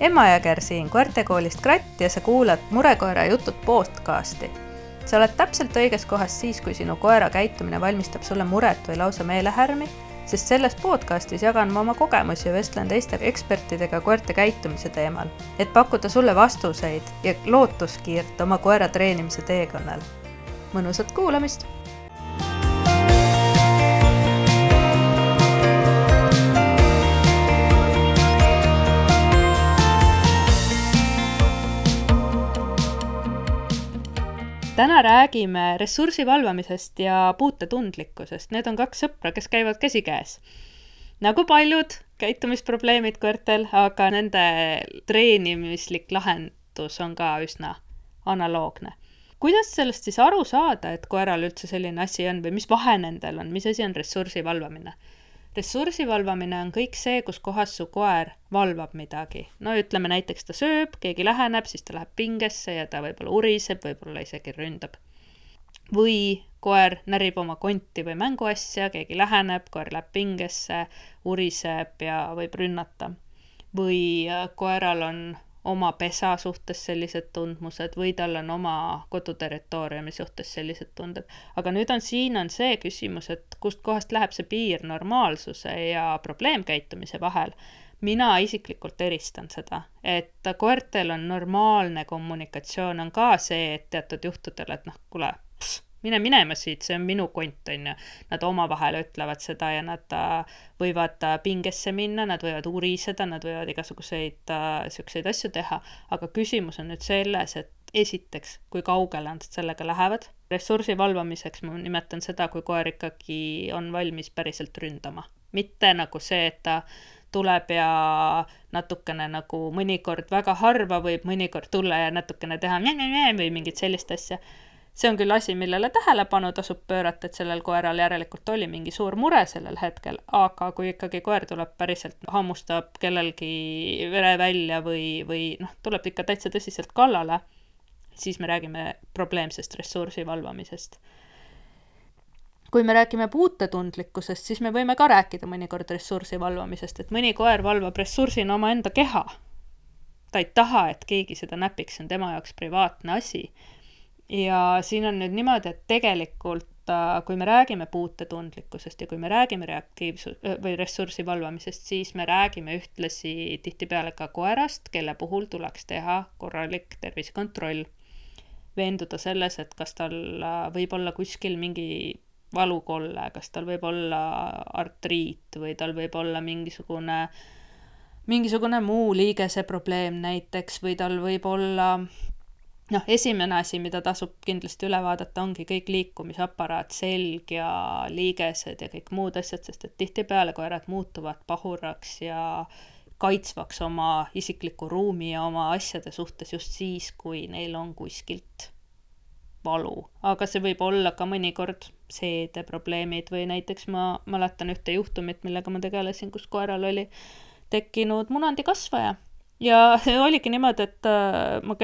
Emma Jõger siin koertekoolist Kratt ja sa kuulad Murekoera jutud podcasti. Sa oled täpselt õiges kohas siis, kui sinu koera käitumine valmistab sulle muret või lausa meelehärmi, sest selles podcastis jagan ma oma kogemusi ja vestlen teiste ekspertidega koerte käitumise teemal, et pakkuda sulle vastuseid ja lootuskiirt oma koera treenimise teekonnal. Mõnusat kuulamist! Täna räägime ressursi valvamisest ja puutetundlikkusest. Need on kaks sõpra, kes käivad käsikäes. Nagu paljud käitumisprobleemid koertel, aga nende treenimislik lahendus on ka üsna analoogne. Kuidas sellest siis aru saada, et koeral üldse selline asi on või mis vahe nendel on, mis asi on ressursi valvamine? Ressursi valvamine on kõik see, kus kohas su koer valvab midagi. No ütleme näiteks ta sööb, keegi läheneb, siis ta läheb pingesse ja ta võib-olla uriseb, võib-olla isegi ründab. Või koer närib oma konti või mänguasja, keegi läheneb, koer läheb pingesse, uriseb ja võib rünnata. Või koeral on oma pesa suhtes sellised tundmused või tal on oma koduterritooriumi suhtes sellised tunded. Aga nüüd siin on see küsimus, et kust kohast läheb see piir normaalsuse ja probleemkäitumise vahel. Mina isiklikult eristan seda, et koertel on normaalne kommunikatsioon, on ka see, et teatud juhtudel, et kuule, mine minema siit, see on minu kont, on ju. Nad omavahel ütlevad seda ja nad võivad pingesse minna, nad võivad uriseda, nad võivad igasuguseid asju teha. Aga küsimus on nüüd selles, et esiteks, kui kaugele nad sellega lähevad. Ressursi valvamiseks ma nimetan seda, kui koer ikkagi on valmis päriselt ründama. Mitte nagu see, et ta tuleb ja natukene nagu mõnikord väga harva võib mõnikord tulla ja natukene teha või mingit sellist asja. See on küll asi, millele tähelepanu tasub pöörata, et sellel koeral järelikult oli mingi suur mure sellel hetkel, aga kui ikkagi koer tuleb päriselt hammustab kellelgi vere välja või tuleb ikka täitsa tõsiselt kallale, siis me räägime probleemsest ressursi valvamisest. Kui me räägime puutetundlikkusest, siis me võime ka rääkida mõnikord ressursi valvamisest, et mõni koer valvab ressursina oma enda keha. Ta ei taha, et keegi seda näpiks, see on tema jaoks privaatne asi. Ja siin on nüüd niimoodi, et tegelikult, kui me räägime puutetundlikkusest ja kui me räägime või ressursi valvamisest, siis me räägime ühtlasi tihtipeale ka koerast, kelle puhul tuleks teha korralik tervisekontroll. Veenduda selles, et kas tal võib olla kuskil mingi valukolle, kas tal võib olla artriit või tal võib olla mingisugune muu liigese probleem näiteks või tal võib olla esimene asi, mida tasub kindlasti üle vaadata, ongi kõik liikumisaparaat, selg ja liigesed ja kõik muud asjad, sest et tihtipeale koerad muutuvad pahuraks ja kaitsvaks oma isikliku ruumi ja oma asjade suhtes just siis, kui neil on kuskilt valu. Aga see võib olla ka mõnikord seedeprobleemid või näiteks ma mäletan ühte juhtumit, millega ma tegelesin, kus koeral oli tekkinud munandikasvaja. Ja see oligi niimoodi, et ma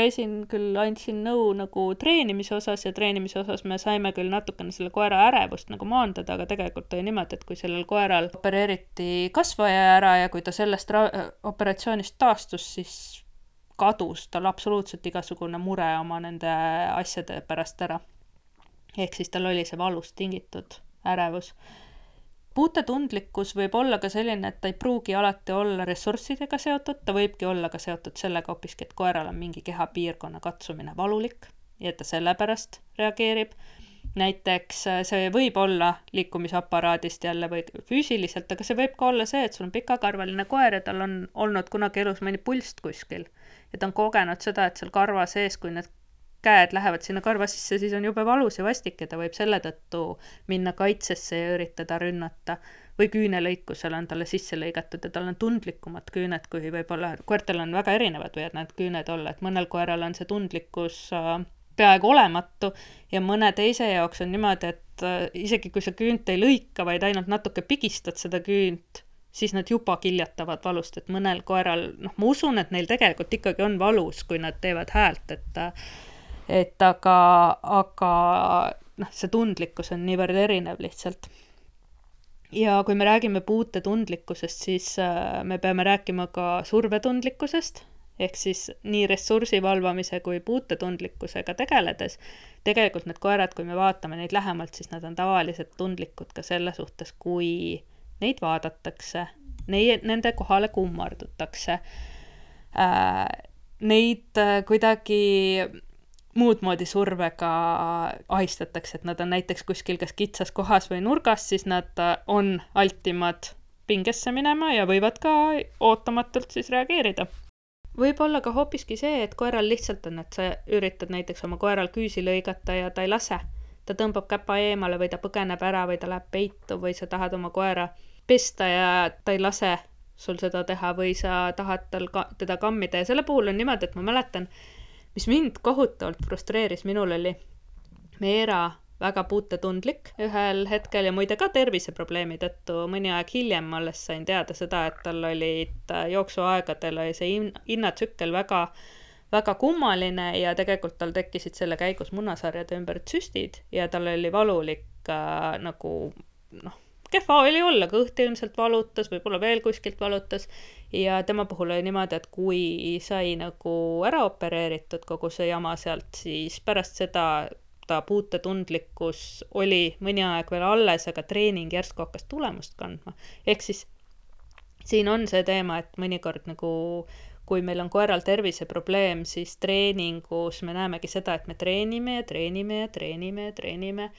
andsin nõu nagu treenimise osas ja treenimise osas me saime küll natukene selle koera ärevust nagu maandada, aga tegelikult oli niimoodi, et kui sellel koeral opereeriti kasvaja ära ja kui ta sellest operatsioonist taastus, siis kadus tal absoluutselt igasugune mure oma nende asjade pärast ära. Ehk siis tal oli see valust tingitud ärevus. Puutetundlikkus võib olla ka selline, et ta ei pruugi alati olla ressurssidega seotud, ta võibki olla ka seotud sellega hoopiski, et koeral on mingi kehapiirkonna katsumine valulik ja et ta sellepärast reageerib. Näiteks see võib olla liikumisaparaadist jälle või füüsiliselt, aga see võib ka olla see, et sul on pikakarvaline koer ja tal on olnud kunagi elus mõni pulst kuskil. Ja ta on kogenud seda, et seal karva sees, kui need käed lähevad sinna karva sisse, siis on jube valus ja vastik ja ta võib selle tõttu minna kaitsesse ja üritada rünnata. Või küünelõikusel on talle sisse lõigatud ja tal on tundlikumad küüned, kui võib-olla koertel on väga erinevad võivad need küüned olla, et mõnel koeral on see tundlikkus peaaegu olematu ja mõne teise jaoks on niimoodi, et isegi kui sa küünt ei lõika, vaid ainult natuke pigistad seda küünt, siis nad juba kiljatavad valust, et mõnel koeral, ma usun, et neil tegelikult ikkagi on valus, kui nad teevad häält, aga see tundlikkus on niivõrd erinev lihtsalt. Ja kui me räägime puutetundlikkusest, siis me peame rääkima ka survetundlikkusest ehk siis nii ressursi valvamise kui puutetundlikkusega tegeledes, tegelikult need koerad, kui me vaatame neid lähemalt, siis nad on tavaliselt tundlikud ka selle suhtes, kui neid vaadatakse, nende kohale kummardutakse, neid kuidagi muud moodi survega ahistatakse, et nad on näiteks kuskil kas kitsas kohas või nurgas, siis nad on altimad pingesse minema ja võivad ka ootamatult siis reageerida. Võib olla ka hoopiski see, et koeral lihtsalt on, et sa üritad näiteks oma koeral küüsi lõigata ja ta ei lase. Ta tõmbab käpa eemale või ta põgeneb ära või ta läheb peitu või sa tahad oma koera pesta ja ta ei lase sul seda teha või sa tahad teda kammida. Ja selle puhul on niimoodi, et ma mäletan, mis mind kohutavalt frustreeris, minul oli Meera väga puutetundlik ühel hetkel ja muide ka terviseprobleemi tõttu mõni aeg hiljem ma alles sain teada seda, et tal olid jooksuaegadel oli see innatsükkel väga, väga kummaline ja tegelikult tal tekkisid selle käigus munasarjade ümber süstid ja tal oli valulik nagu kehva oli olla, kõht ilmselt valutas, võib-olla veel kuskilt valutas ja tema puhul oli niimoodi, et kui sai nagu ära opereeritud kogu see jama sealt, siis pärast seda ta puutetundlikkus oli mõni aeg veel alles, aga treening järsku hakkas tulemust kandma. Ehk siis siin on see teema, et mõnikord nagu kui meil on koeral terviseprobleem, siis treeningus me näemegi seda, et me treenime ja treenime ja treenime ja treenime.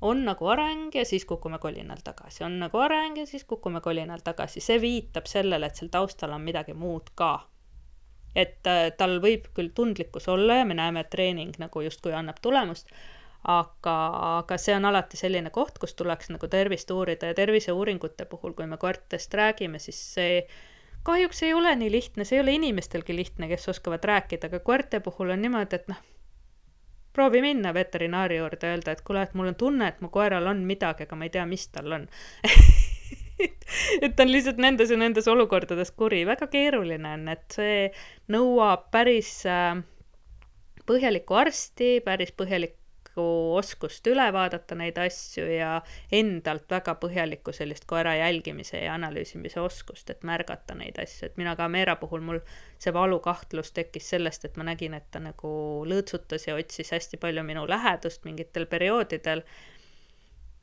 On nagu areng ja siis kukume kolinal tagasi. On nagu areng ja siis kukume kolinal tagasi. See viitab sellele, et seal taustal on midagi muud ka. Et tal võib küll tundlikkus olla ja me näeme, et treening nagu justkui annab tulemust, aga see on alati selline koht, kus tuleks nagu tervist uurida ja terviseuuringute puhul, kui me koertest räägime, siis see kahjuks ei ole nii lihtne, see ei ole inimestelgi lihtne, kes oskavad rääkida, aga koerte puhul on niimoodi, et proovi minna veterinaari juurde ja öelda, et kuule, et mul on tunne, et mu koeral on midagi, aga ma ei tea, mis tal on. Et ta on lihtsalt nendes ja nendes olukordades kuri. Väga keeruline on, et see nõuab päris põhjalikku arsti, päris põhjalikku oskust üle vaadata neid asju ja endalt väga põhjalikku sellist koera jälgimise ja analüüsimise oskust, et märgata neid asju. Et mina ka Meera puhul mul see valukahtlus tekkis sellest, et ma nägin, et ta nagu lõõtsutas ja otsis hästi palju minu lähedust mingitel perioodidel.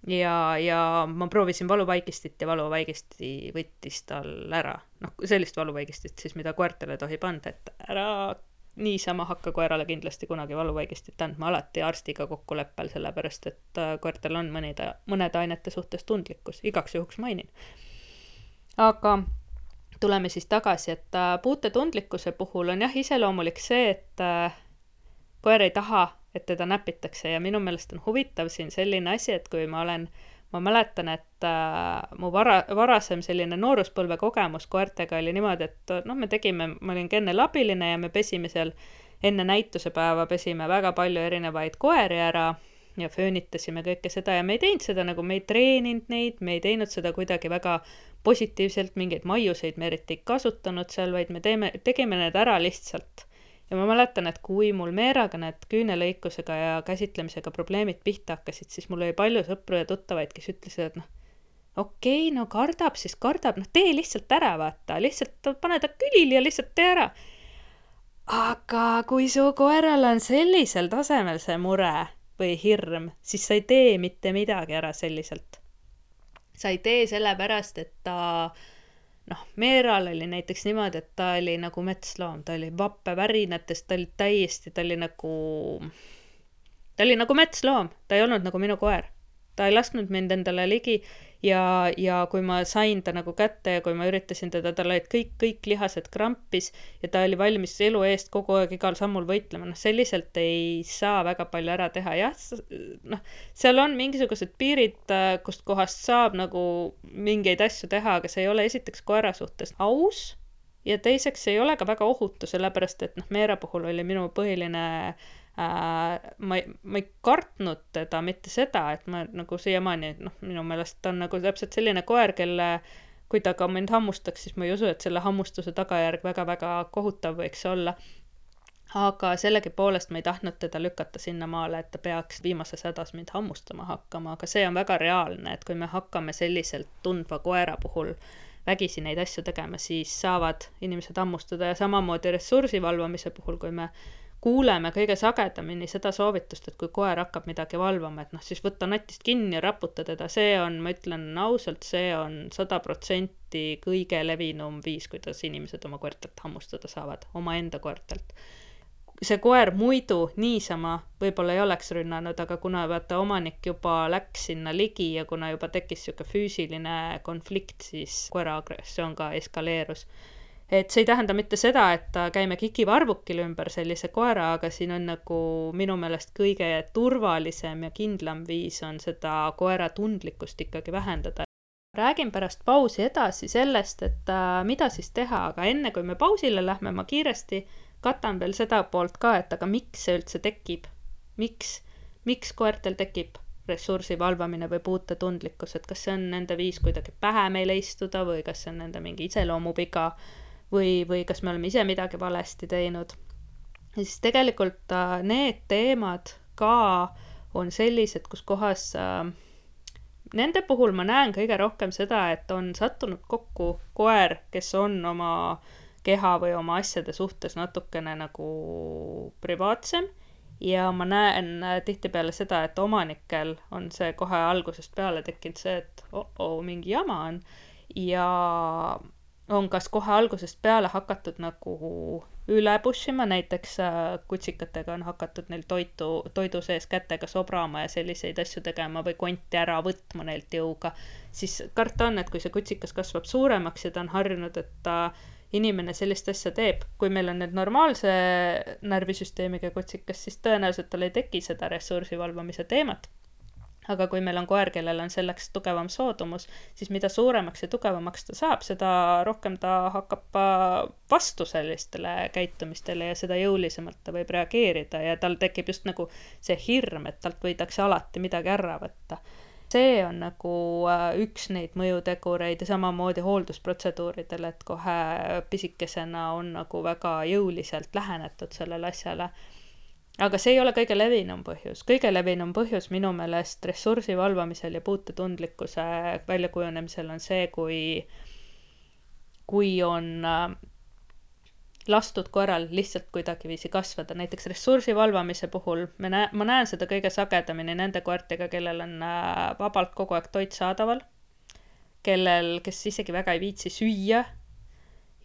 Ja ma proovisin valuvaigistit ja valuvaigisti võttis tal ära. Sellist valuvaigistit siis, mida koertele tohib anda, et ära niisama hakka koerale kindlasti kunagi valuvaigistit andma alati arstiga kokkuleppel, sellepärast, et koertel on mõnede ainete suhtes tundlikkus. Igaks juhuks mainin. Aga tuleme siis tagasi, et puutetundlikkuse puhul on jah iseloomulik see, et koer ei taha, et teda näpitakse ja minu meelest on huvitav siin selline asi, et kui ma mäletan, et mu varasem selline nooruspõlve kogemus koertega oli niimoodi, et ma olin enne labiline ja me pesime seal enne näitusepäeva, pesime väga palju erinevaid koeri ära ja föönitasime kõike seda ja me ei teinud seda nagu, me ei treeninud neid, me ei teinud seda kuidagi väga positiivselt, mingeid maiuseid me eriti ei kasutanud seal, vaid me tegime need ära lihtsalt. Ja ma mäletan, et kui mul Meeraga need küünelõikusega ja käsitlemisega probleemid pihta hakkasid, siis mul oli palju sõpru ja tuttavaid, kes ütlesid, et okei, kardab, siis kardab, tee lihtsalt ära, vaata, lihtsalt pane ta külili ja lihtsalt tee ära. Aga kui su koeral on sellisel tasemel see mure või hirm, siis sa ei tee mitte midagi ära selliselt. Sa ei tee sellepärast, et ta Meeral oli näiteks niimoodi, et ta oli nagu metsloom, ta oli vappe värinatest, ta oli nagu metsloom, ta ei olnud nagu minu koer. Ta ei lasknud mind endale ligi ja kui ma sain ta nagu kätte ja kui ma üritasin teda, tal olid kõik lihased krampis ja ta oli valmis elu eest kogu aeg igal sammul võitlema. Selliselt ei saa väga palju ära teha. Jah, seal on mingisugused piirid, kust kohast saab nagu mingeid asju teha, aga see ei ole esiteks koera suhtes aus ja teiseks ei ole ka väga ohutu, sellepärast et Meera puhul oli minu põhiline ma ei kartnud teda mitte seda, et ma nagu siiamaani, minu meelest ta on nagu täpselt selline koer, kelle kui ta ka mind hammustaks, siis ma ei usu, et selle hammustuse tagajärg väga-väga kohutav võiks olla. Aga sellegi poolest ma ei tahtnud teda lükata sinna maale, et ta peaks viimases hädas mind hammustama hakkama, aga see on väga reaalne, et kui me hakkame selliselt tundva koera puhul vägisi neid asju tegema, siis saavad inimesed hammustada. Ja samamoodi ressursi valvamise puhul, kui me kuuleme kõige sagedamini seda soovitust, et kui koer hakkab midagi valvama, et siis võtta natist kinni ja raputa teda, see on, ma ütlen ausalt, see on 100% kõige levinum viis, kuidas inimesed oma koertelt hammustada saavad, oma enda koertelt. See koer muidu niisama võib-olla ei oleks rünnanud, aga kuna vaata omanik juba läks sinna ligi ja kuna juba tekkis siuke füüsiline konflikt, siis koera agressioon ka eskaleerus. Et see ei tähenda mitte seda, et käime kikivarvukil ümber sellise koera, aga siin on nagu minu meelest kõige turvalisem ja kindlam viis on seda koera tundlikkust ikkagi vähendada. Räägin pärast pausi edasi sellest, et mida siis teha, aga enne kui me pausile lähme, ma kiiresti katan veel seda poolt ka, et aga miks see üldse tekib? Miks koertel tekib ressursi valvamine või puutetundlikkus, et kas see on nende viis kuidagi pähe meile istuda või kas see on nende mingi iseloomupiga või kas me oleme ise midagi valesti teinud. Ja siis tegelikult need teemad ka on sellised, kus kohas nende puhul ma näen kõige rohkem seda, et on sattunud kokku koer, kes on oma keha või oma asjade suhtes natukene nagu privaatsem ja ma näen tihtipeale seda, et omanikel on see kohe algusest peale tekkinud see, et mingi jama on ja on kas kohe algusest peale hakatud nagu üle pushima, näiteks kutsikatega on hakatud neil toidu sees kätega sobrama ja selliseid asju tegema või konti ära võtma neilt jõuga, siis karta on, et kui see kutsikas kasvab suuremaks ja ta on harjunud, et inimene sellist asja teeb, kui meil on need normaalse närvisüsteemiga kutsikas, siis tõenäoliselt tal ei teki seda ressursi valvamise teemat. Aga kui meil on koer, kellel on selleks tugevam soodumus, siis mida suuremaks ja tugevamaks ta saab, seda rohkem ta hakkab vastu sellistele käitumistele ja seda jõulisemalt ta võib reageerida ja tal tekib just nagu see hirm, et talt võidakse alati midagi ära võtta. See on nagu üks neid mõjutegureid ja samamoodi hooldusprotseduuridel, et kohe pisikesena on nagu väga jõuliselt lähenetud sellele asjale. Aga see ei ole kõige levinum põhjus. Kõige levinum põhjus minu meelest ressursi valvamisel ja puutetundlikkuse väljakujunemisel on see, kui on lastud koeral lihtsalt kuidagi viisi kasvada. Näiteks ressursi valvamise puhul ma näen seda kõige sagedamini nende koertega, kellel on vabalt kogu aeg toit saadaval, kes isegi väga ei viitsi süüa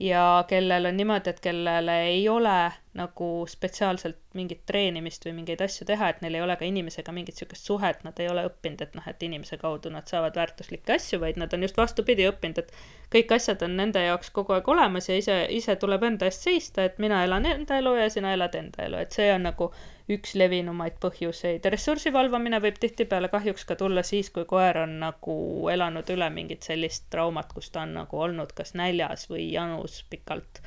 ja kellel on niimoodi, et kellele ei ole nagu spetsiaalselt mingit treenimist või mingeid asju teha, et neil ei ole ka inimesega mingit sükest suhet, nad ei ole õppinud, et inimese kaudu nad saavad väärtuslikke asju, vaid nad on just vastupidi õppinud, et kõik asjad on nende jaoks kogu aeg olemas ja ise tuleb enda eest seista, et mina elan enda elu ja sina elad enda elu, et see on nagu üks levinumaid põhjuseid. Ressursi valvamine võib tihtipeale kahjuks ka tulla siis, kui koer on nagu elanud üle mingit sellist traumat, kus ta on nagu olnud kas näljas või janus pikalt.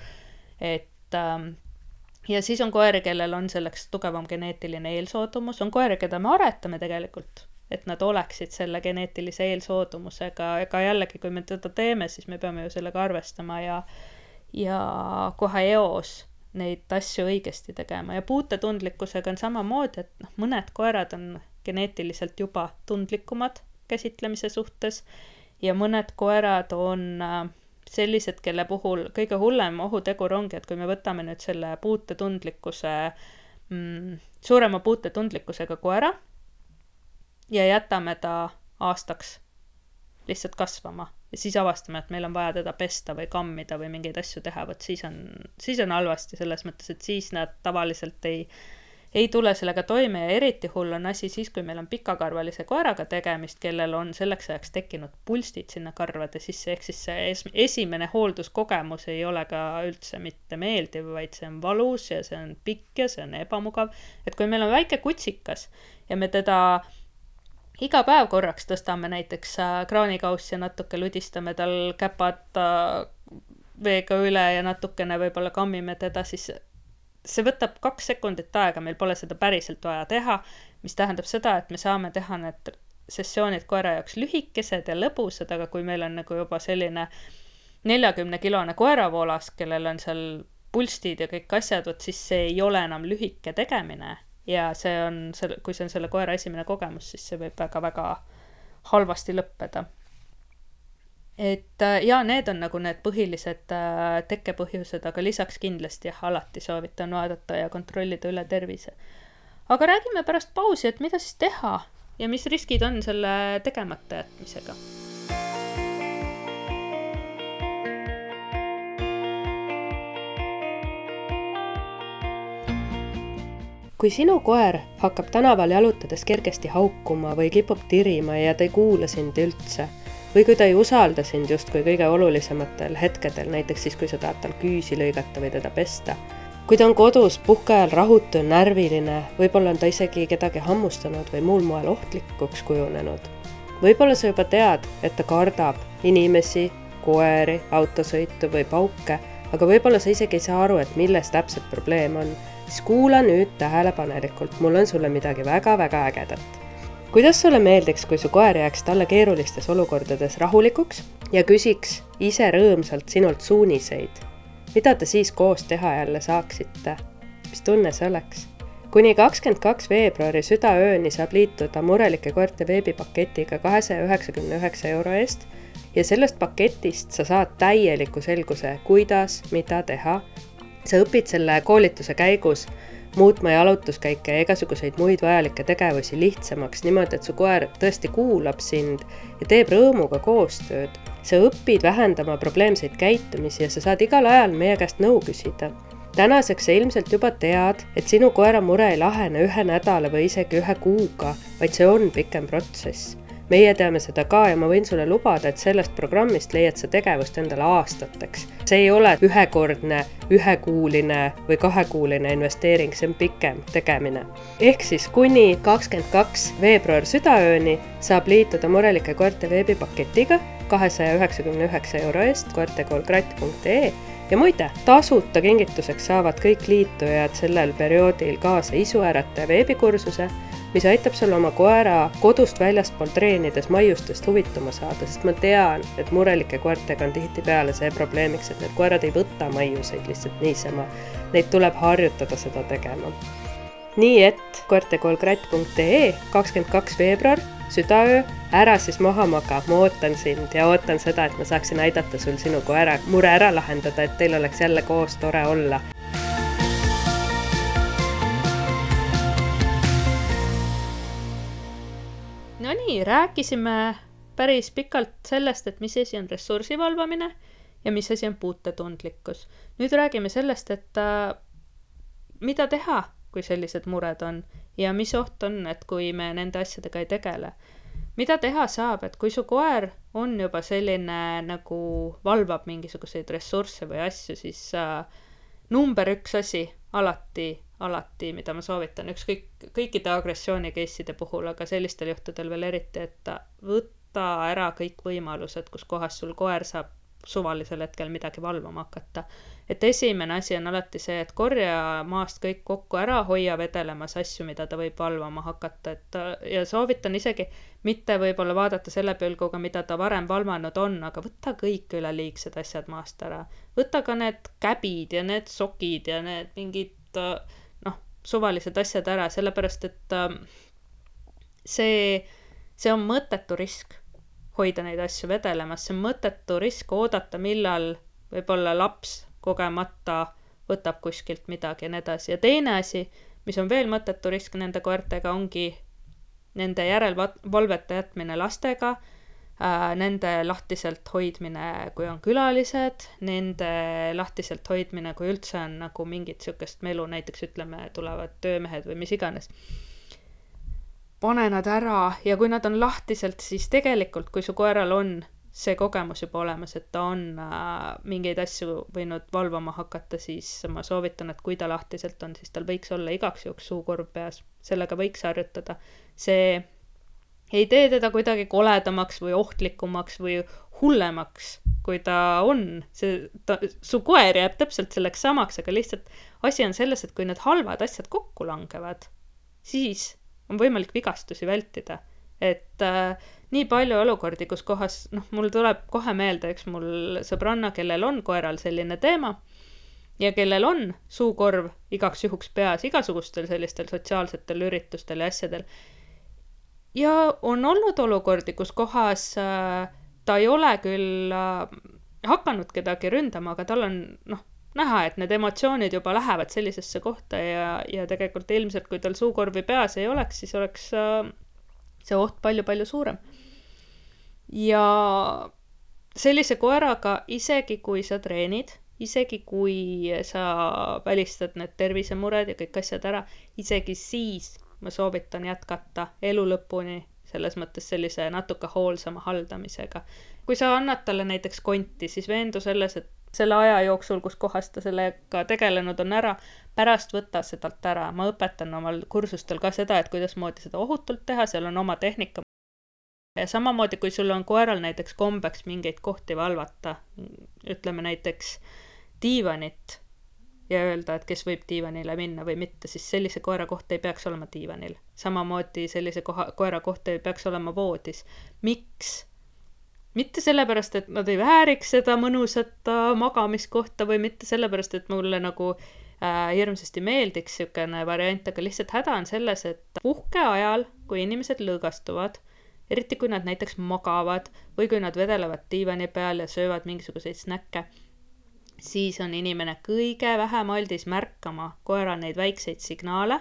Ja siis on koeri, kellel on selleks tugevam geneetiline eelsoodumus, on koeri, keda me aretame tegelikult, et nad oleksid selle geneetilise eelsoodumusega, ega jällegi, kui me teda teeme, siis me peame ju sellega arvestama ja kohe eos neid asju õigesti tegema. Ja puutetundlikkusega on samamoodi, et mõned koerad on geneetiliselt juba tundlikumad käsitlemise suhtes ja mõned koerad on sellised, kelle puhul kõige hullem ohutegur ongi, et kui me võtame nüüd selle suurema puutetundlikkusega koera ja jätame ta aastaks lihtsalt kasvama ja siis avastame, et meil on vaja teda pesta või kammida või mingeid asju teha, võt siis on halvasti selles mõttes, et siis nad tavaliselt ei tule sellega toime ja eriti hull on asi siis, kui meil on pikakarvalise koeraga tegemist, kellel on selleks ajaks tekkinud pulstid sinna karvade sisse, ehk siis see esimene hoolduskogemus ei ole ka üldse mitte meeldiv, vaid see on valus ja see on pikk ja see on ebamugav. Et kui meil on väike kutsikas ja me teda iga päev korraks tõstame näiteks kraanikaussi ja natuke ludistame tal käpad veega üle ja natukene võib-olla kammime teda, siis see võtab 2 sekundit aega, meil pole seda päriselt vaja teha, mis tähendab seda, et me saame teha need sessioonid koera jaoks lühikesed ja lõbusad, aga kui meil on nagu juba selline 40-kilone koeravoolas, kellel on seal pulstid ja kõik asjad, siis see ei ole enam lühike tegemine ja kui see on selle koera esimene kogemus, siis see võib väga-väga halvasti lõppeda. ja need on nagu need põhilised tekkepõhjused, aga lisaks kindlasti alati soovitan vaadata ja kontrollida üle tervise. Aga räägime pärast pausi, et mida siis teha ja mis riskid on selle tegemata jätmisega. Kui sinu koer hakkab tänaval jalutades kergesti haukuma või kipub tirima ja ta ei kuula sind üldse, või kui ta ei usalda sind justkui kõige olulisematel hetkedel, näiteks siis, kui sa tahad tal küüsi lõigata või teda pesta. Kui ta on kodus puhkeajal rahutu ja närviline, võib-olla on ta isegi kedagi hammustanud või muul moel ohtlikuks kujunenud. Võib-olla sa juba tead, et ta kardab inimesi, koeri, autosõitu või pauke, aga võib-olla sa isegi ei saa aru, et milles täpselt probleem on. Siis kuula nüüd tähelepanelikult, mul on sulle midagi väga-väga ägedat. Kuidas sulle meeldiks, kui su koer jääks talle keerulistes olukordades rahulikuks ja küsiks ise rõõmsalt sinult suuniseid? Mida te siis koos teha jälle saaksite? Mis tunne see oleks? Kuni 22. veebruari südaööni saab liituda Murelike koerte veebipaketiga 299 € eest ja sellest paketist sa saad täieliku selguse, kuidas, mida teha. Sa õpid selle koolituse käigus muutma jalutuskäike ja igasuguseid muid vajalikke tegevusi lihtsamaks niimoodi, et su koer tõesti kuulab sind ja teeb rõõmuga koostööd. Sa õpid vähendama probleemseid käitumisi ja sa saad igal ajal meie käest nõu küsida. Tänaseks sa ilmselt juba tead, et sinu koera mure ei lahene 1 nädala või isegi 1 kuuga, vaid see on pikem protsess. Meie teame seda ka ja ma võin sulle lubada, et sellest programmist leiad sa tegevust endale aastateks. See ei ole ühekordne, 1-kuuline või 2-kuuline investeering, see on pikem tegemine. Ehk siis kuni 22. veebruar südaööni saab liituda Murelike koerte veebipaketiga 299 € eest koertekoolkratt.ee ja muide, tasuta kingituseks saavad kõik liitujad sellel perioodil kaasa isuärataja veebikursuse, mis aitab sul oma koera kodust väljaspool treenides maiustest huvituma saada, sest ma tean, et Murelike koertega on tihtipeale see probleemiks, et need koerad ei võta maiuseid lihtsalt niisama. Neid tuleb harjutada seda tegema. Nii et koertekoolkratt.ee 22. veebruar, südaöö, ära siis maha maga, ma ootan sind ja ootan seda, et ma saaksin aidata sul sinu koera mure ära lahendada, et teil oleks jälle koos tore olla. No nii, rääkisime päris pikalt sellest, et mis asi on ressursi valvamine ja mis asi on puutetundlikkus. Nüüd räägime sellest, et mida teha, kui sellised mured on ja mis oht on, et kui me nende asjadega ei tegele. Mida teha saab, et kui su koer on juba selline nagu valvab mingisuguseid ressursse või asju, siis number 1 asi alati, mida ma soovitan kõikide agressioonikeisside puhul, aga sellistel juhtudel veel eriti, et võtta ära kõik võimalused, kus kohas sul koer saab suvalisel hetkel midagi valvama hakata. Et esimene asi on alati see, et korja maast kõik kokku ära, hoia vedelemas asju, mida ta võib valvama hakata. Ja soovitan isegi mitte võib-olla vaadata selle pilguga, mida ta varem valvanud on, aga võtta kõik üleliigsed asjad maast ära. Võtta ka need käbid ja need sokid ja need mingid suvalised asjad ära, sellepärast, et see on mõttetu risk hoida neid asju vedelemas, see on mõttetu risk oodata, millal võib-olla laps kogemata võtab kuskilt midagi ja nii edasi. Ja teine asi, mis on veel mõttetu risk nende koertega, ongi nende järelvalvete jätmine lastega, nende lahtiselt hoidmine, kui on külalised, nende lahtiselt hoidmine, kui üldse on nagu mingit sükest melu, näiteks ütleme, tulevad töömehed või mis iganes. Pane nad ära ja kui nad on lahtiselt, siis tegelikult, kui su koeral on see kogemus juba olemas, et ta on mingeid asju võinud valvama hakata, siis ma soovitan, et kui ta lahtiselt on, siis tal võiks olla igaks juhuks suukorv peas. Sellega võiks harjutada. See ei tee teda kuidagi koledamaks või ohtlikumaks või hullemaks, kui ta on. Su koer jääb täpselt selleks samaks, aga lihtsalt asi on selles, et kui need halvad asjad kokku langevad, siis on võimalik vigastusi vältida. Et nii palju olukordi, kus kohas, mul tuleb kohe meelde, eks mul sõbranna, kellel on koeral selline teema ja kellel on suukorv igaks juhuks peas igasugustel sellistel sotsiaalsetel üritustel ja asjadel. Ja on olnud olukordi, kus kohas ta ei ole küll hakanud kedagi ründama, aga tal on näha, et need emotsioonid juba lähevad sellisesse kohta ja tegelikult ilmselt, kui tal suukorvi peas ei oleks, siis oleks see oht palju-palju suurem. Ja sellise koeraga, isegi kui sa treenid, isegi kui sa välistad need tervisemured ja kõik asjad ära, isegi siis ma soovitan jätkata elu lõpuni, selles mõttes sellise natuke hoolsama haldamisega. Kui sa annad talle näiteks konti, siis veendu selles, et selle aja jooksul, kus kohas ta sellega tegelenud on ära, pärast võtta sedalt ära. Ma õpetan omal kursustel ka seda, et kuidas moodi seda ohutult teha, seal on oma tehnika. Ja samamoodi, kui sul on koeral näiteks kombeks mingeid kohti valvata, ütleme näiteks diivanit ja öelda, et kes võib diivanile minna või mitte, siis sellise koera koht ei peaks olema diivanil. Samamoodi sellise koera koht ei peaks olema voodis. Miks? Mitte sellepärast, et nad ei vääriks seda mõnusat magamiskohta või mitte sellepärast, et mulle nagu hirmsasti meeldiks sükene variant, aga lihtsalt häda on selles, et puhke ajal, kui inimesed lõõgastuvad, eriti kui nad näiteks magavad või kui nad vedelevad diivani peal ja söövad mingisuguseid snäkke, siis on inimene kõige vähem aldis märkama koera neid väikseid signaale.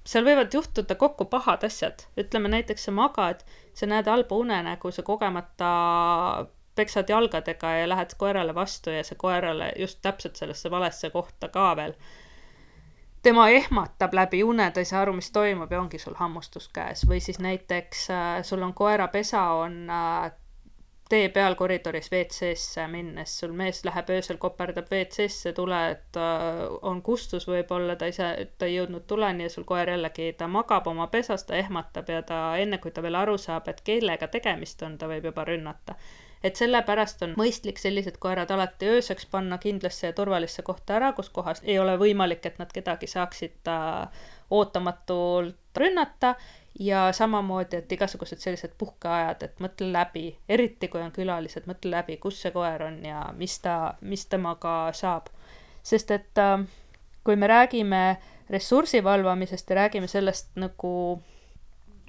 Seal võivad juhtuda kokku pahad asjad. Ütleme näiteks sa magad, sa näed halba unenägu, sa kogemata peksad jalgadega ja lähed koerale vastu ja see koerale just täpselt sellesse valesse kohta ka veel. Tema ehmatab läbi une, ta ei saa aru, mis toimub ja ongi sul hammustus käes. Või siis näiteks sul on koera pesa, on tee peal koridoris WC-sse minnes, sul mees läheb öösel, koperdab WC-sse, tuled, on kustus võib-olla, ta ei jõudnud tuleni ja sul koer jällegi, ta magab oma pesas, ta ehmatab ja ta enne, kui ta veel aru saab, et kellega tegemist on, ta võib juba rünnata. Et sellepärast on mõistlik sellised koerad alati ööseks panna kindlasse ja turvalisse kohta ära, kus kohas ei ole võimalik, et nad kedagi saaksid ootamatult rünnata. Ja samamoodi, et igasugused sellised puhkeajad, et mõtle läbi, eriti kui on külalised, mõtle läbi, kus see koer on ja mis temaga saab. Sest et kui me räägime ressursi valvamisest ja räägime sellest nagu,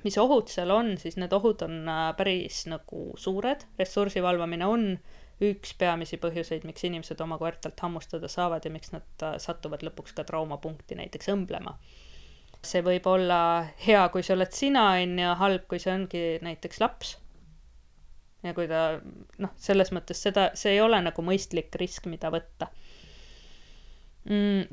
mis ohud seal on, siis need ohud on päris nagu suured. Ressursi valvamine on üks peamisi põhjuseid, miks inimesed oma koertalt hammustada saavad ja miks nad satuvad lõpuks ka traumapunkti näiteks õmblema. See võib olla hea, kui see oled sina, ja halb, kui see ongi näiteks laps. Ja kui ta, selles mõttes see ei ole nagu mõistlik risk, mida võtta.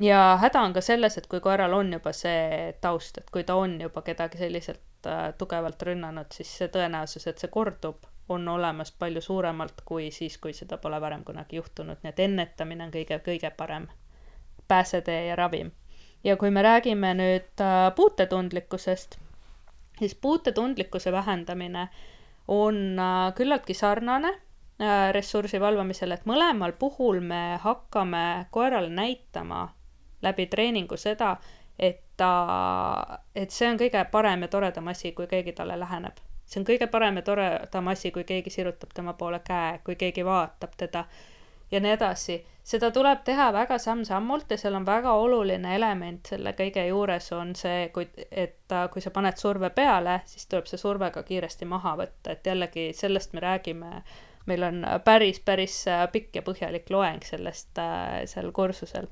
Ja häda on ka selles, et kui koeral on juba see taust, et kui ta on juba kedagi selliselt tugevalt rünnanud, siis see tõenäosus, et see kordub, on olemas palju suuremalt kui siis, kui seda pole varem kunagi juhtunud. Nii et ennetamine on kõige parem pääsetee ja ravim. Ja kui me räägime nüüd puutetundlikkusest, siis puutetundlikkuse vähendamine on küllaltki sarnane ressursi valvamisele, et mõlemal puhul me hakkame koerale näitama läbi treeningu seda, et see on kõige parem ja toredam asi, kui keegi talle läheneb. See on kõige parem ja toredam asi, kui keegi sirutab tema poole käe, kui keegi vaatab teda ja nii edasi. Seda tuleb teha väga samm-sammult ja seal on väga oluline element selle kõige juures on see, et kui sa paned surve peale, siis tuleb see surve ka kiiresti maha võtta. Et jällegi sellest me räägime, meil on päris pikk ja põhjalik loeng sellest seal kursusel,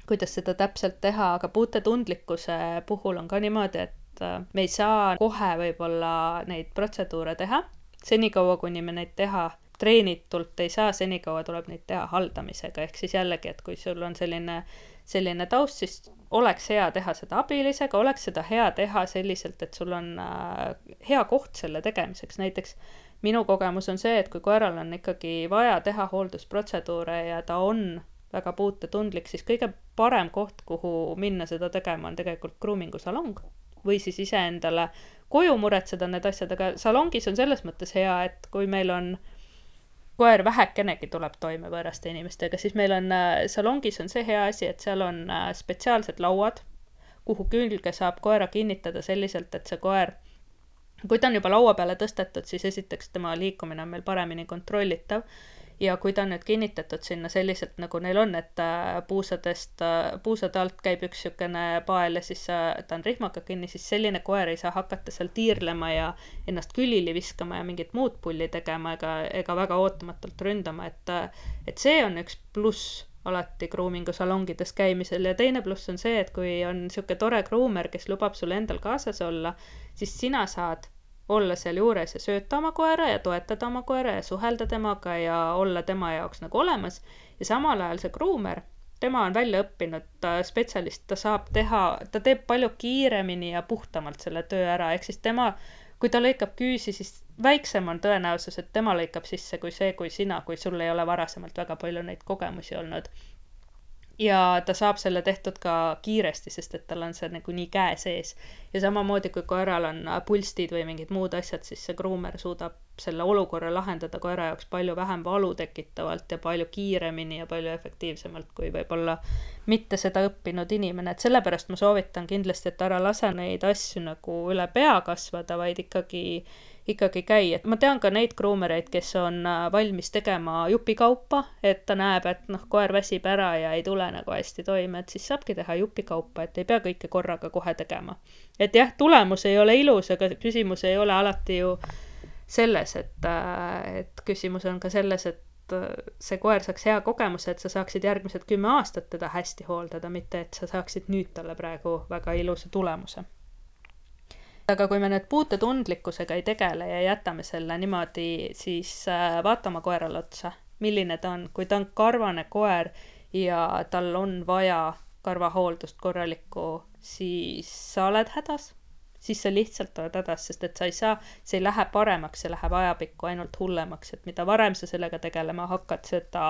kuidas seda täpselt teha, aga puutetundlikkuse puhul on ka niimoodi, et me ei saa kohe võib-olla neid protseduure teha, senikaua kuni me neid teha treenitult ei saa, senikaua tuleb neid teha haldamisega, ehk siis jällegi, et kui sul on selline taust, siis oleks hea teha seda abilisega, oleks seda hea teha selliselt, et sul on hea koht selle tegemiseks. Näiteks minu kogemus on see, et kui koeral on ikkagi vaja teha hooldusprotseduure ja ta on väga puutetundlik, siis kõige parem koht, kuhu minna seda tegema, on tegelikult groomingusalong või siis iseendale koju muretseda need asjad, aga salongis on selles mõttes hea, et kui meil on koer vähekenegi tuleb toime võõraste inimestega, siis meil on salongis on see hea asi, et seal on spetsiaalsed lauad, kuhu külge saab koera kinnitada selliselt, et see koer, kui ta on juba laua peale tõstetud, siis esiteks tema liikumine on meil paremini kontrollitav ja kui ta on nüüd kinnitatud sinna selliselt, nagu neil on, et puusade alt käib üks niisugune pael ja siis ta on rihmaga kinni, siis selline koer ei saa hakata seal tiirlema ja ennast külili viskama ja mingit muud pulli tegema ega väga ootamatult ründama, et see on üks pluss alati groomingu salongides käimisel ja teine pluss on see, et kui on niisugune tore groomer, kes lubab sul endal kaasas olla, siis sina saad olla seal juures ja sööta oma koera ja toetada oma koera ja suhelda temaga ja olla tema jaoks nagu olemas ja samal ajal see groomer, tema on välja õppinud spetsialist, ta teeb palju kiiremini ja puhtamalt selle töö ära, ehk siis tema, kui ta lõikab küüsi, siis väiksem on tõenäosus, et tema lõikab sisse kui sina, kui sul ei ole varasemalt väga palju neid kogemusi olnud. Ja ta saab selle tehtud ka kiiresti, sest et tal on see nagu nii käe sees. Ja samamoodi, kui koeral on pulstid või mingid muud asjad, siis see groomer suudab selle olukorra lahendada koera jaoks palju vähem valu tekitavalt ja palju kiiremini ja palju efektiivsemalt, kui võib-olla mitte seda õppinud inimene. Et sellepärast ma soovitan kindlasti, et ära lase neid asju nagu üle pea kasvada, vaid ikkagi käi. Et ma tean ka neid groomereid, kes on valmis tegema jupikaupa, et ta näeb, et koer väsib ära ja ei tule nagu hästi toime, et siis saabki teha jupikaupa, et ei pea kõike korraga kohe tegema. Et jah, tulemus ei ole ilus, aga küsimus ei ole alati ju selles, et küsimus on ka selles, et see koer saaks hea kogemuse, et sa saaksid järgmised 10 aastat teda hästi hooldada, mitte et sa saaksid nüüd talle praegu väga ilusa tulemuse. Aga kui me nüüd puutetundlikkusega ei tegele ja jätame selle niimoodi, siis vaatama koerale otsa, milline ta on. Kui ta on karvane koer ja tal on vaja karvahooldust korralikku, siis sa oled hädas. Siis sa lihtsalt oled hädas, sest et see ei lähe paremaks, see läheb ajapikku ainult hullemaks, et mida varem sa sellega tegelema hakkad, seda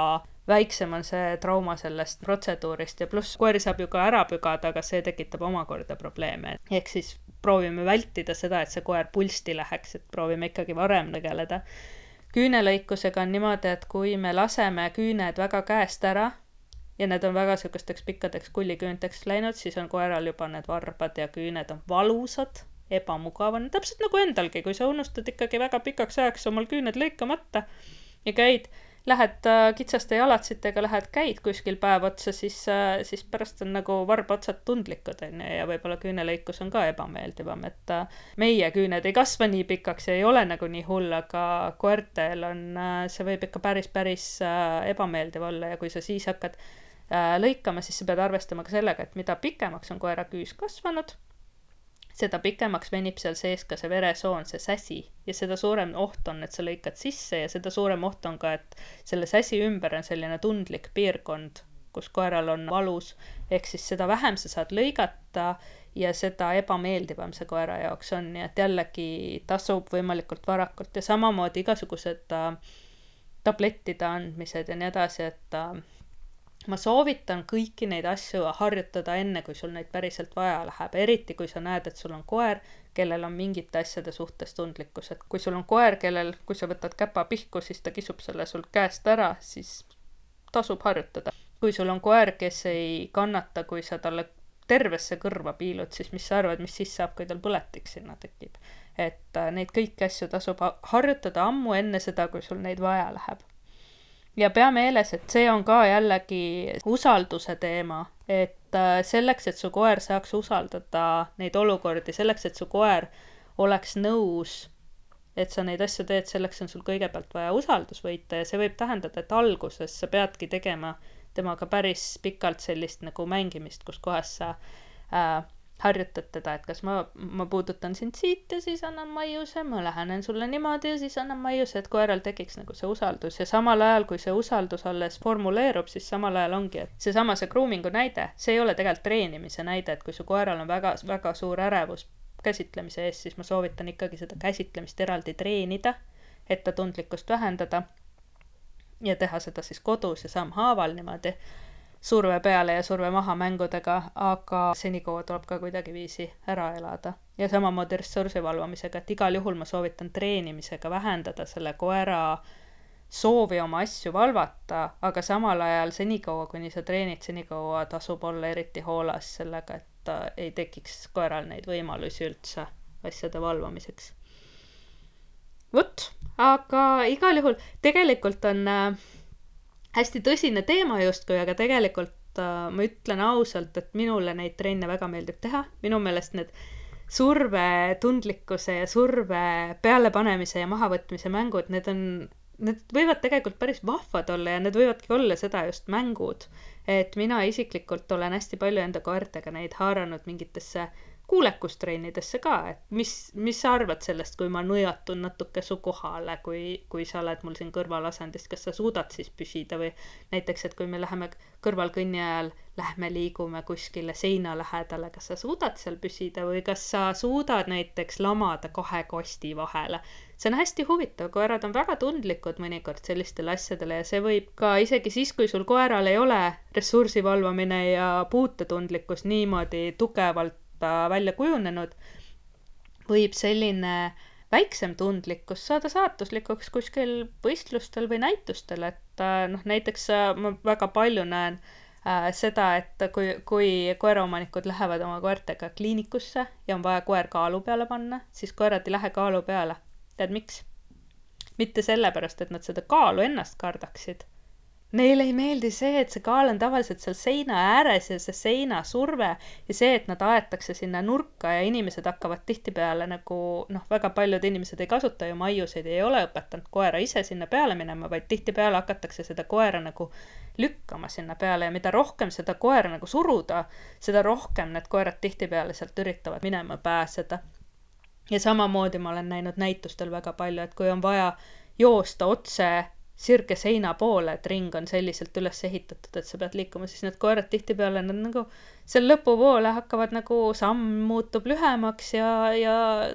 väiksem on see trauma sellest protseduurist ja pluss koeri saab ju ka ära pügada, aga see tekitab omakorda probleeme. Ehk siis proovime vältida seda, et see koer pulsti läheks, et proovime ikkagi varem tegeleda. Küünelõikusega on niimoodi, et kui me laseme küüned väga käest ära ja need on väga sükesteks pikkadeks kulliküünteks läinud, siis on koeral juba need varbad ja küüned on valusad, ebamugav. Täpselt nagu endalgi, kui sa unustad ikkagi väga pikaks ajaks omal küüned lõikamata ja lähed kitsaste jalatsitega, käid kuskil päev otsa, siis pärast on nagu varbaotsad tundlikud ja võib-olla küünelõikus on ka ebameeldivam, et meie küüned ei kasva nii pikaks ja ei ole nagu nii hull, aga koertel see võib ikka päris ebameeldiv olla ja kui sa siis hakkad lõikama, siis sa pead arvestama ka sellega, et mida pikemaks on koera küüs kasvanud, seda pikemaks venib seal sees ka see veresoon, see säsi ja seda suurem oht on, et sa lõikad sisse ja seda suurem oht on ka, et selle säsi ümber on selline tundlik piirkond, kus koeral on valus, ehk siis seda vähem sa saad lõigata ja seda ebameeldivam see koera jaoks on, nii et jällegi tasub võimalikult varakult ja samamoodi igasugused tablettide andmised ja nii edasi, et ma soovitan kõiki neid asju harjutada enne, kui sul neid päriselt vaja läheb, eriti kui sa näed, et sul on koer, kellel on mingite asjade suhtes tundlikkus, et kui sul on koer, kui sa võtad käpa pihku, siis ta kisub selle sul käest ära, siis tasub harjutada. Kui sul on koer, kes ei kannata, kui sa talle tervesse kõrva piilud, siis mis sa arvad, mis siis saab, kui tal põletik sinna tekib. Et neid kõiki asju tasub harjutada ammu enne seda, kui sul neid vaja läheb. Ja pea meeles, et see on ka jällegi usalduse teema, et selleks, et su koer saaks usaldada neid olukordi, selleks, et su koer oleks nõus, et sa neid asju teed, selleks on sul kõigepealt vaja usaldus võita ja see võib tähendada, et alguses sa peadki tegema temaga päris pikalt sellist nagu mängimist, kus kohas sa harjutad teda, et kas ma puudutan sind siit ja siis annan maiuse, ma lähenen sulle niimoodi ja siis annan maiuse, et koeral tekiks nagu see usaldus ja samal ajal, kui see usaldus alles formuleerub, siis samal ajal ongi, et see groomingu näide, see ei ole tegelikult treenimise näide, et kui su koeral on väga, väga suur ärevus käsitlemise ees, siis ma soovitan ikkagi seda käsitlemist eraldi treenida, et ta tundlikkust vähendada ja teha seda siis kodus ja sammhaaval niimoodi surve peale ja surve maha mängudega, aga senikaua tuleb ka kuidagi viisi ära elada. Ja samamoodi ressursi valvamisega, et igal juhul ma soovitan treenimisega vähendada selle koera soovi oma asju valvata, aga samal ajal senikaua, kuni sa treenid, senikaua tasub olla eriti hoolas sellega, et ei tekiks koeral neid võimalusi üldse asjade valvamiseks. Vot, aga igal juhul tegelikult on hästi tõsine teema justkui, aga tegelikult ma ütlen ausalt, et minule neid trenne väga meeldib teha. Minu meelest need survetundlikkuse ja surve pealepanemise ja mahavõtmise mängud, need võivad tegelikult päris vahvad olla ja need võivadki olla seda just mängud. Et mina isiklikult olen hästi palju enda koertega neid haaranud mingitesse kuulekustrennidesse ka, et mis sa arvad sellest, kui ma nõjatun natuke su kohale, kui sa oled mul siin kõrvalasendist, kas sa suudad siis püsida või näiteks, et kui me läheme kõrvalkõnni ajal, lähme liigume kuskile seina lähedale, kas sa suudad seal püsida või kas sa suudad näiteks lamada 2 kosti vahele. See on hästi huvitav, koerad on väga tundlikud mõnikord sellistele asjadele ja see võib ka isegi siis, kui sul koeral ei ole ressursi valvamine ja puutetundlikkus niimoodi tugevalt välja kujunenud, võib selline väiksem tundlikkus saada saatuslikuks kuskil võistlustel või näitustel, et näiteks ma väga palju näen seda, et kui koeraomanikud lähevad oma koertega kliinikusse ja on vaja koer kaalu peale panna, siis koerad ei lähe kaalu peale. Tead miks? Mitte sellepärast, et nad seda kaalu ennast kardaksid. Neile ei meeldi see, et see kaal on tavaliselt seal seina ääres ja see seina surve ja see, et nad aetakse sinna nurka ja inimesed hakkavad tihtipeale nagu, väga paljud inimesed ei kasuta ju maiuseid, ei ole õpetanud koera ise sinna peale minema, vaid tihtipeale hakatakse seda koera nagu lükkama sinna peale ja mida rohkem seda koera nagu suruda, seda rohkem need koerad tihtipeale sealt üritavad minema pääseda. Ja samamoodi ma olen näinud näitustel väga palju, et kui on vaja joosta otse sirge seina poole, et ring on selliselt üles ehitatud, et sa pead liikuma, siis need koerad tihtipeale nad nagu seal lõpupoole hakkavad nagu samm muutub lühemaks ja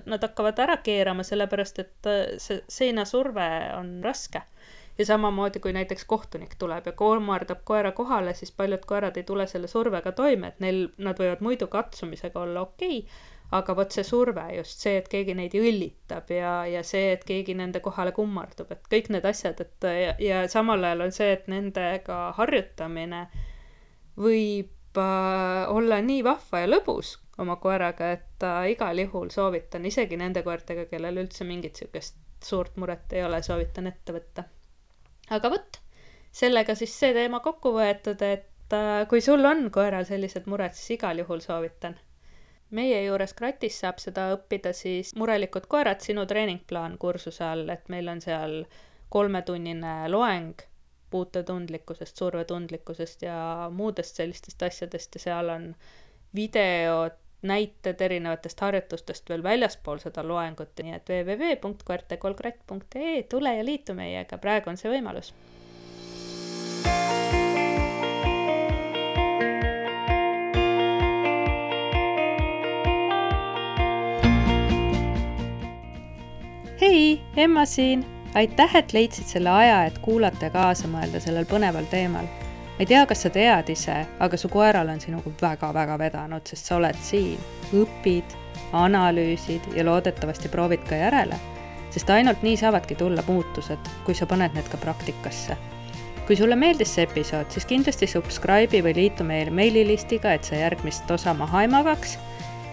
nad hakkavad ära keerama, sellepärast et see seinasurve on raske. Ja samamoodi, kui näiteks kohtunik tuleb ja koomardab koera kohale, siis paljud koerad ei tule selle survega toime, et nad võivad muidu katsumisega olla okei, aga vot see surve, just see, et keegi neid õllitab ja see, et keegi nende kohale kummardub, et kõik need asjad, ja samal ajal on see, et nendega harjutamine võib olla nii vahva ja lõbus oma koeraga, et igal juhul soovitan, isegi nende koertega, kellel üldse mingit sükest suurt muret ei ole, soovitan ette võtta. Aga võt, sellega siis see teema kokku võetud, et kui sul on koeral sellised mured, siis igal juhul soovitan. Meie juures Kratis saab seda õppida siis Murelikud koerad, sinu treeningplaan kursuse all, et meil on seal 3-tunnine loeng puutetundlikkusest, survetundlikkusest ja muudest sellistest asjadest ja seal on videod, näited erinevatest harjutustest veel väljaspool seda loengut, nii et www.koertekolkratt.ee, tule ja liitu meiega, praegu on see võimalus. Hei, Emma siin! Aitäh, et leidsid selle aja, et kuulata ja kaasa mõelda sellel põneval teemal. Ma ei tea, kas sa tead ise, aga su koeral on sinuga väga-väga vedanud, sest sa oled siin, õpid, analüüsid ja loodetavasti proovid ka järele, sest ainult nii saavadki tulla muutused, kui sa paned need ka praktikasse. Kui sulle meeldis see episood, siis kindlasti subscribe'i või liitu meile meililistiga, et sa järgmist osa maha ei magaks.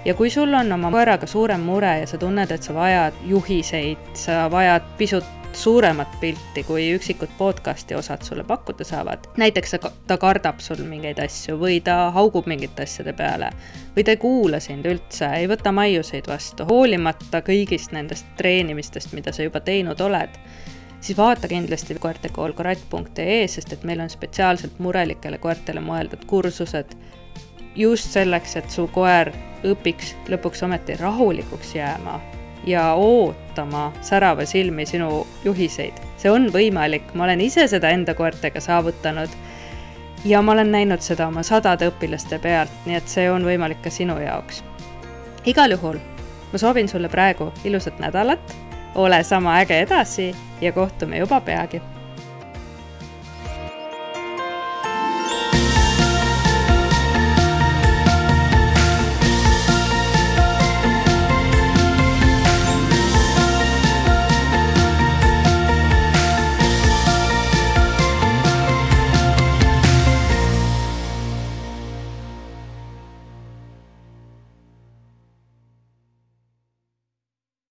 Ja kui sul on oma koeraga suurem mure ja sa tunned, et sa vajad juhiseid, sa vajad pisut suuremat pilti, kui üksikud podcasti osad sulle pakkuda saavad. Näiteks ta kardab sul mingeid asju või ta haugub mingite asjade peale või ta ei kuula sind üldse, ei võta maiuseid vastu, hoolimata kõigist nendest treenimistest, mida sa juba teinud oled. Siis vaata kindlasti koertekolkratt.ee, sest et meil on spetsiaalselt murelikele koertele mõeldud kursused just selleks, et su koer õpiks lõpuks ometi rahulikuks jääma ja ootama särava silmi sinu juhiseid. See on võimalik, ma olen ise seda enda koertega saavutanud ja ma olen näinud seda oma 100 õpilaste pealt, nii et see on võimalik ka sinu jaoks. Igal juhul, ma soovin sulle praegu ilusat nädalat, ole sama äge edasi ja kohtume juba peagi.